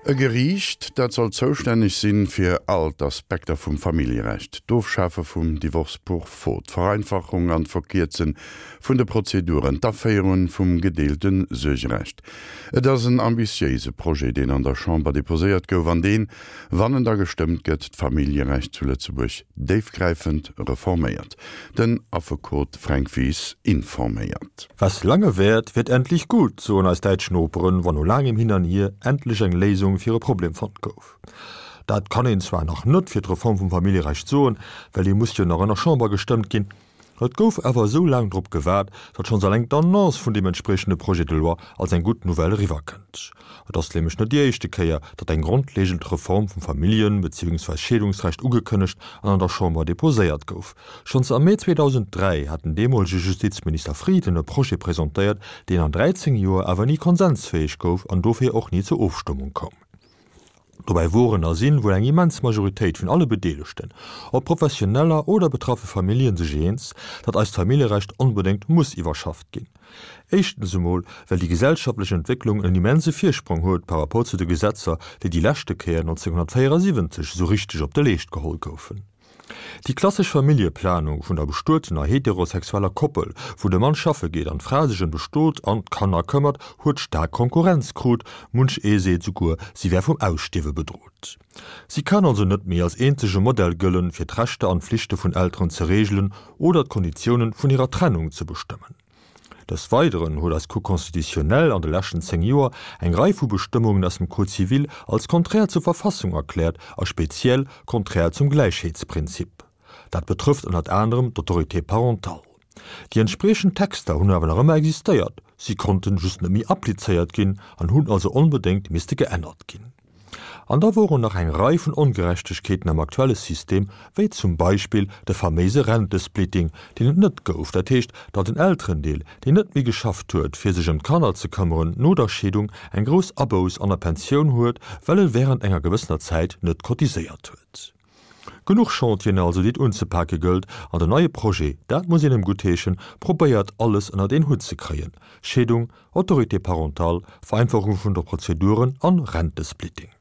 E Geriicht, dat soll zoustänneg sinn fir all d'Aspekter vum Familljerecht, d'Ofschafe vum Divorce pour faute, d'Vereinfachung an d'Verkierze vun de Prozeduren, d'Aféierung vum gedeelte Suergerecht. Et ass en ambitiéise Projet, deen an der Chamber deposéiert gouf an deen, wann en da gestëmmt gëtt, d'Familljerecht zu Lëtzebuerg déifgräifend reforméiert. Den Affekot Fränk Wies informéiert. Was lange währt, wird endlich gut, soen eis däitsch Noperen, wann no laangem Hin an Hier endlech eng Léisung fir e Problem fonnt gouf. Dat kann een zwar nach net fir d'Reform vum Familljerecht soen, well déi muss jo nach an der Chamber gestëmmt ginn. Et gouf awer esou laang drop gewaart, datt schonns alleng d'Annonce vun deem entspriechende Projet de loi als eng gutt Nouvelle eriwwerkënnt. Et ass nämlech net déi éischte Kéier, datt eng grondlegend Reform vum Familljen beziehungsweis Scheedungsrecht ugekënnegt an an der Chamber deposéiert gouf. Schonns am Mee 2003 hat den deemolege Justizminister Frieden e Projet presentéiert, deen an 13 Joer awer ni konsensfäeg gouf an dofir och ni zur Ofstëmmung koum. Dobäi woren a sinn wuel eng immens Majoritéit vun alle Bedeelegten, ob Professioneller oder betraffe Familljen, sech eens, datt eist Familljerecht onbedéngt muss iwwerschafft ginn. Éischtens emol, well déi gesellschaftlech Entwécklung en immense Virsprong huet par rapport zu de Gesetzer, déi déi leschte Kéier 1974 esou richteg op de Leescht geholl goufen. Déi klassesch Familljeplanung vun der bestuetener heterosexueller Koppel, wou de Mann schaffe geet an d'Fra sech ëm de Stot an d'Kanner këmmert, huet staark Konkurrenz krut, munch ee seet souguer, si wär vum Ausstierwe bedrot. Si kann also net méi als eenzege Modell gëllen, fir d'Rechter an d'Flichte vun Elteren ze reegelen oder d'Konditiounen vun hirer Trennung ze bestëmmen. Des Weideren huet eis Cour constitutionnelle an de leschten 10 Joer eng Rei vu Bestëmmungen aus dem Code civil als konträr zur Verfassung erkläert a speziell konträr zum Gläichheetsprinzip. Dat betrëfft ënnert anerem d'Autorité parentale. Déi entspriechend Texter hunn awer nach ëmmer existéiert, si konnten just net méi applizéiert ginn an hunn also onbedéngt misste geännert ginn. An da woren nach eng Rei vun Ongerechtegkeeten am aktuelle System, wéi zum Beispill de faméise Rentesplitting, deen et net gouf, dat heescht, datt en Elterendeel, deen net méi geschafft huet, fir sech ëm d'Kanner ze këmmeren, no der Scheedung eng grouss Abouss an der Pensioun huet, well e während enger gewëssener Zäit net cotiséiert huet. Genuch Chantieren also, déi et unzepake gëllt, an den neie Projet, dat muss een em guttheeschen, probéiert alles ënnert een Hutt ze kréien, Scheedung, Autorité parentale, Vereinfachung vun de Prozeduren an Rentesplitting.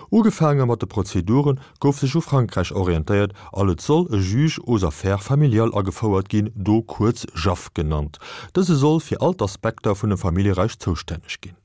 Ugefaange mat de Prozeduren gouf sech u Frankräich orientéiert an et soll e Juge aux affaires familiales agefouert ginn, do kuerz JAF genannt. Dëse soll fir all d'Aspekter vun dem Familljerecht zoustänneg ginn.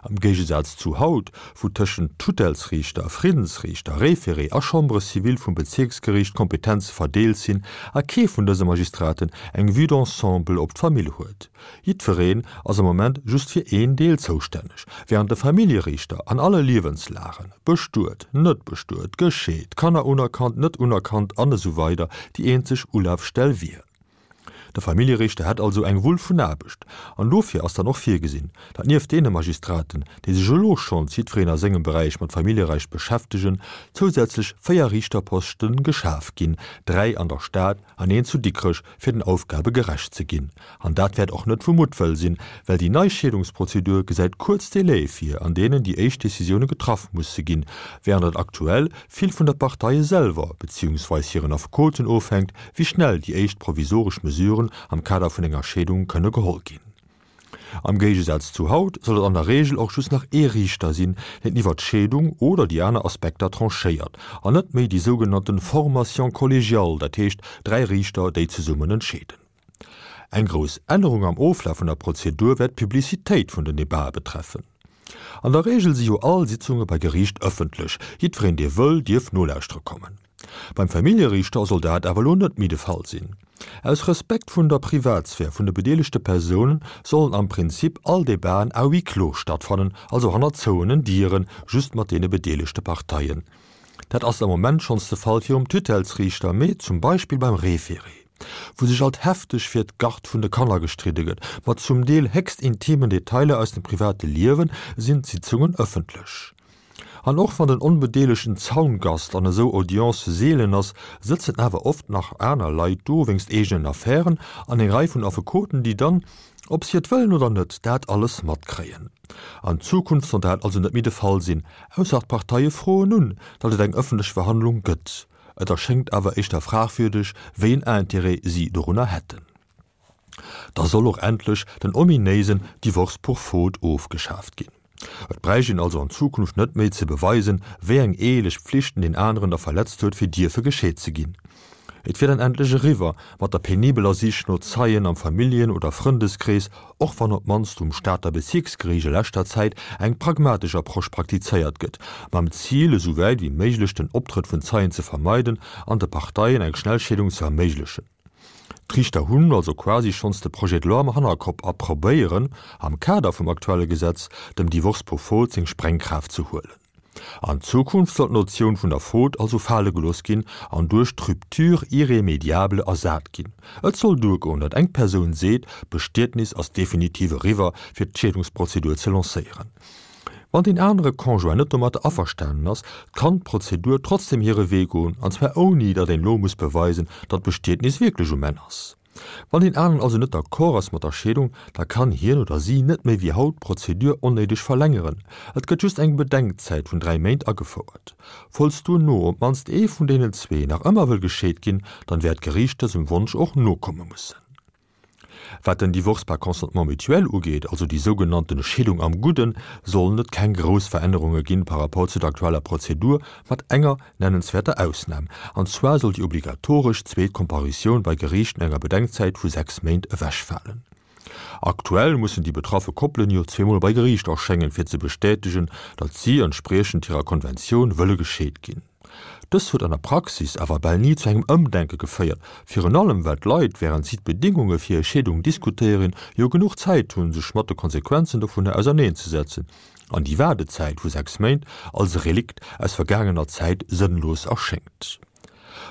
Am Géigesaz zu haut, wou tëschent Tutellsriichter, Friddensriichter, Référé a Chambre civile vum Bezierksgeriicht d'Kompetenze verdeelt sinn a kee vun dëse Magistraten eng Vue d'ensemble op d'Famill huet. Jiddwereen ass am Moment just fir een Deel zoustänneg, wärend de Familljeriichter an alle Liewenslagen, bestuet, net bestuet, gescheet, Kanner unerkannt, net unerkannt an esou weider déi eenzeg Ulafstell wier. De Familljeriichter hätt also eng Wull vun Aarbecht. An dofir ass dann och virgesinn, datt nieft deene Magistraten, déi sech elo schonns jiddwereen a sengem Beräich mat Familljerecht beschäftegen, zousätzlech 4 Riichterposte geschaf ginn, 3 an der Stad an een zu Dikrech, fir den Aufgabe gerecht ze ginn. An dat wäert och net vu Muttwëll sinn, well déi nei Scheedungsprozedur gesäit kuerz Délaië vir, an deenen déi éischt Decisioune getraff musse ginn, während et aktuell vill vun der Parteie selwer, beziehungsweis hiren Affekoten ofhänkt, wéi schnell déi éischt provisoresch Mesuren am Kader vun enger Scheedung kënne geholl ginn. Am Géigesaz zu haut soll et an der Reegel och just nach ee Riichter sinn, deen iwwer d'Scheedung oder déi aner Aspekter tranchéiert, an net méi déi sougenannte Formation collégiale, dat heescht 3 Riichter, déi zesummen entscheeden. Eng grouss Ännerung am Oflaf vun der Prozedur wäert d'Publicitéit vun den Debatë betreffen. An der Reegel si jo all Sitzunge bei Geriicht ëffentlech, jiddwereen dee wëll, dierf nolauschtere kommen. Beim Familljeriichter soll dat awer elo net méi de Fall sinn. Aus Respekt vun der Privatsphär vun de bedeelegte Persounen sollen am Prinzip all Debaten à huis clos stattfannen, also hanner zouenen Dieren, just mat deene bedeelegte Parteien. Dat ass am Moment schonns de Fall virum Tutellsriichter, mee zum Beispill beim Référé, wou sech alt hefteg fir d'Garde vun de Kanner gestridde gëtt, mat zum Deel héchst intimen Detailer aus dem private Liewen, sinn d'Sitzungen ëffentlech. An och wann den onbedeelegten Zaungast an esou Audiencë seelen ass, sëtzen awer oft nach aner Leit do wéinst eegenen Affären an eng Rei vun Affekoten, déi dann, ob si et wëllen oder net, dat alles matkréien. An Zukunft soll dat also net méi de Fall sinn, ausser d'Parteie froen un, datt et eng ëffentlech Verhandlung gëtt. Et erschéngt awer éischter fragwürdeg, wéi en Intérêt si dorunner hätten. Da soll och endlech den ominéisen Divorce pour faute ofgeschaaft ginn. Et bräicht een also an Zukunft net méi ze beweisen, wéi eng eheleg Pflichten deen aneren da verletzt huet, fir dierfe gescheet ze ginn. Et wier dann endlech eriwwer mat der penibeler Sich no Zeien am Familljen oder Frëndeskrees, och wann op d'mannst um Stater Bezierksgeriicht a leschter Zäit eng pragmatesch Approche praktizéiert gëtt, mam Zil, esou wäit wéi méiglech den Optrëtt vun Zeien ze vermeiden an de Parteien eng schnell Scheedung ze erméiglechen. D'Riichter hunn also quasi schonns de Projet de loi am Hannerkopp a probéieren, am Kader vum aktuelle Gesetz, dem Divorce pour faute seng Sprengkraaft ze huelen. An Zukunft soll d'Notioun vun der Faute also fale gelooss ginn an duerch d'Rupture irrémédiable ersat ginn. Et soll duergoen, datt eng Persoun seet, d'Bestietnis ass definitiv eriwwer, fir d'Scheedungsprozedur ze lancéieren. Wann deen anere Conjoint net domatter averstanen ass, kann d'Prozedur trotzdem hire Wee goen, an zwar ouni datt een elo muss beweisen, datt d'Bestietnis wierklech um Enn ass. Wann deen aneren also net d'accord ass mat der Scheedung, da kann hien oder si net méi wéi haut d'Prozedur onnéideg verlängeren. Et gëtt just eng Bedenkzäit vun 3 Méint agefouert. Falls duerno op d'mannst ee vun deenen zwee nach ëmmer wëll gescheet ginn, dann wäert d'Geriicht dësem Wonsch och nokomme mussen. Wat den Divorce par consentement mutuel ugeet, also déi sougenannten Scheedung am Gudden, sollen et keng grouss Verännerunge ginn par rapport zu der aktueller Prozedur, mat enger Nennenswäerter Ausnam, an zwar soll déi obligatoresch zweet Comparitioun bei Geriicht no enger Bedenkzäit vu 6 Méint ewechfalen. Aktuell mussen déi betraffe Koppelen jo zweemol bei Geriicht erschéngen, fir ze bestätegen, datt si entspriechend hirer Konventioun wëlle gescheet ginn. Dës huet an der Praxis awer bal ni zu engem Ëmdenke geféiert, virun allem well d'Leit, wärend si d'Bedingunge fir hir Scheedung diskutéieren, jo genuch Zäit hunn, sech mat de Konsequenzen dovunner auserneenzesetzen. An déi Waardezäit vu 6 Méint als e Relikt aus vergaangener Zäit sënnlos erschéngt.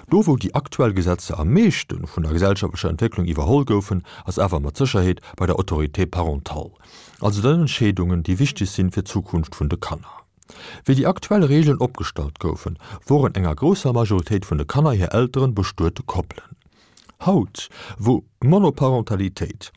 Do wou déi aktuell Gesetzer am meeschte vun der gesellschaftlecher Entwécklung iwwerholl goufen, ass awer mat Sécherheet bei der Autorité parentale, also den Entscheedungen déi wichteg sinn fir d'Zukunft vun de Kanner. Wéi déi aktuell Regeln opgestallt goufen, woren enger grousser Majoritéit vun de Kanner hir Elteren bestuete Koppelen. Haut, wou Monoparentalitéit,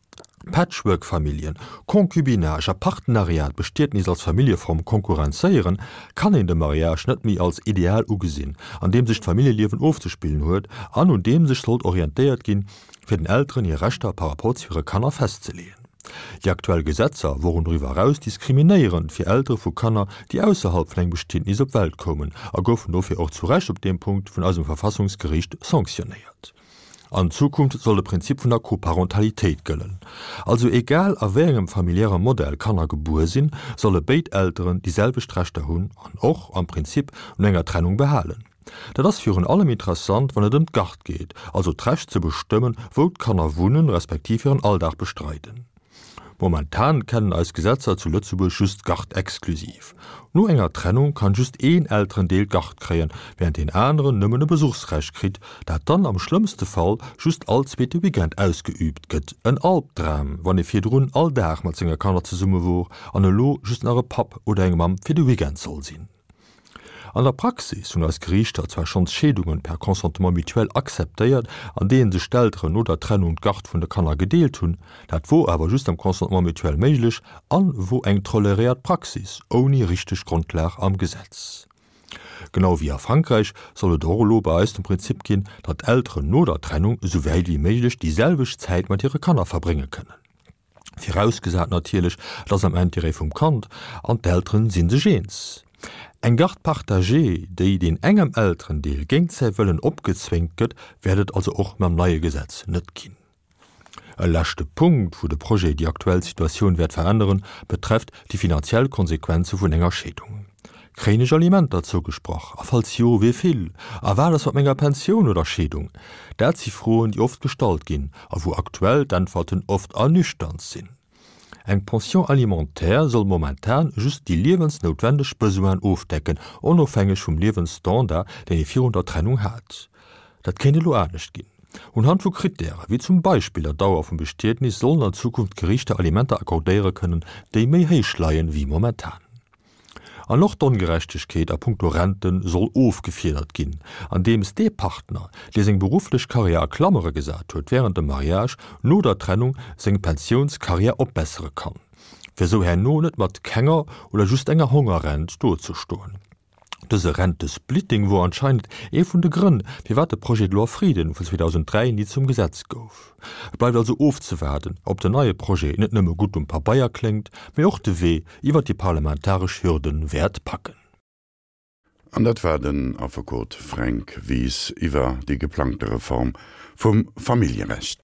Patchwork-Familljen, Concubinage a Partenariat d'Bestietnis als Familljeform konkurrenzéieren, kann een de Mariage net méi als Ideal ugesinn, an deem sech d'Familljeliewen ofzespillen huet an un deem sech sollt orientéiert ginn, fir den Elteren hir Rechter par rapport zu hire Kanner festzeleeën. Déi aktuell Gesetzer woren doriwwer eraus diskriminéierend fir Eltere vu Kanner, déi ausserhalb vun engem Bestietnis op d'Welt koumen a goufen dofir och zu Recht op deem Punkt vun eisem Verfassungsgeriicht sanctionnéiert. An Zukunft soll de Prinzip vun der Coparentalitéit gëllen. Also egal a wéi engem familiäre Modell Kanner gebuer sinn, solle béid Elteren déi selwecht Rechter hunn an och am Prinzip no enger Trennung behalen. Dat ass virun allem interessant, wann et ëm d'Gard geet, also d'Recht ze bestëmmen, wou d'Kanner wunnen, respektiv hiren Alldag bestreiden. Momentan kennen eis Gesetzer zu Lëtzebuerg just d'Gard exklusiv. No enger Trennung kann just een Elterendeel d'Gard kréien, während deen aneren nëmmen e Besuchsrecht kritt, dat dann am schlëmmste Fall just all zweete Weekend ausgeüübt gëtt. En Albdram, wann ee virdrun all Dag mat senge Kanner zesumme wor an elo just nach e Papp oder eng Mamm fir de Weekend soll sinn. An der Praxis hunn eis Geriichter zwar schonns Scheedungen per Consentement mutuel akzeptéiert, an deenen sech d'Elteren no der Trennung d'Garde vun de Kanner gedeelt hunn. Dat wor awer just am Consentement mutuel méiglech an wor eng toleréiert Praxis ouni richteg Grondlag am Gesetz. Genau wéi a Frankräich soll et och elo bei eis den Prinzip ginn, datt d'Elteren no der Trennung esou wäit wéi méiglech déi selwecht Zäit mat hire Kanner verbrénge kënnen. Virausgesat natierlech, et ass am Intérêt vum Kand an d'Elteren si sech eens. Eng Garde partagée, déi deen engem Elterendeel géint säi Wëllen opgezwéngt gëtt, wäert et also och mam neie Gesetz net ginn. E leschte Punkt, wou de Projet déi aktuell Situatioun wäert veränneren, betrefft déi finanziell Konsequenze vun enger Scheedung. Kréien ech Alimenter zougesprach? A falls jo, wéi vill? A wat ass mat menger Pensioun oder Scheedung? Dat si Froen, déi oft gestallt ginn a wou aktuell d'Äntwerten oft ernüchternd sinn. Eng Pension alimentaire soll momentan just déi liewensnoutwendeg Besoinen ofdecken, onofhängeg vum Liewensstandard, deen ee virun der Trennung hat. Dat kéint elo anescht ginn. Unhand vu Krittäre wéi zum Beispill der Dauer vum Bestietnis sollen an Zukunft d'Geriichter Alimenter accordéiere kënnen, déi méi héich leien wéi momentan. An och d'Ongerechtegkeet a punkto Rente soll ofgefiedert ginn, andeems dee Partner, dee seng berufflech Karriär a Klammere gesat huet wärend dem Mariage, no der Trennung seng Pensiounskarriär opbessere kann, fir esou herno net mat kenger oder just enger Hongerrent dozestoen. Dëse Rentesplitting wor anscheinend ee vun de Grënn, firwat de Projet de loi Frieden vun 2003 ni zum Gesetz gouf. Et bleift also ofzewaarden, ob den neie Projet net nëmme gutt um Pabeier kléngt, mee och de Wee iwwer déi parlamentaresch Hürde wäert packen. An dat war den Affekot Fränk Wies iwwer déi geplangte Reform vum Familljerecht.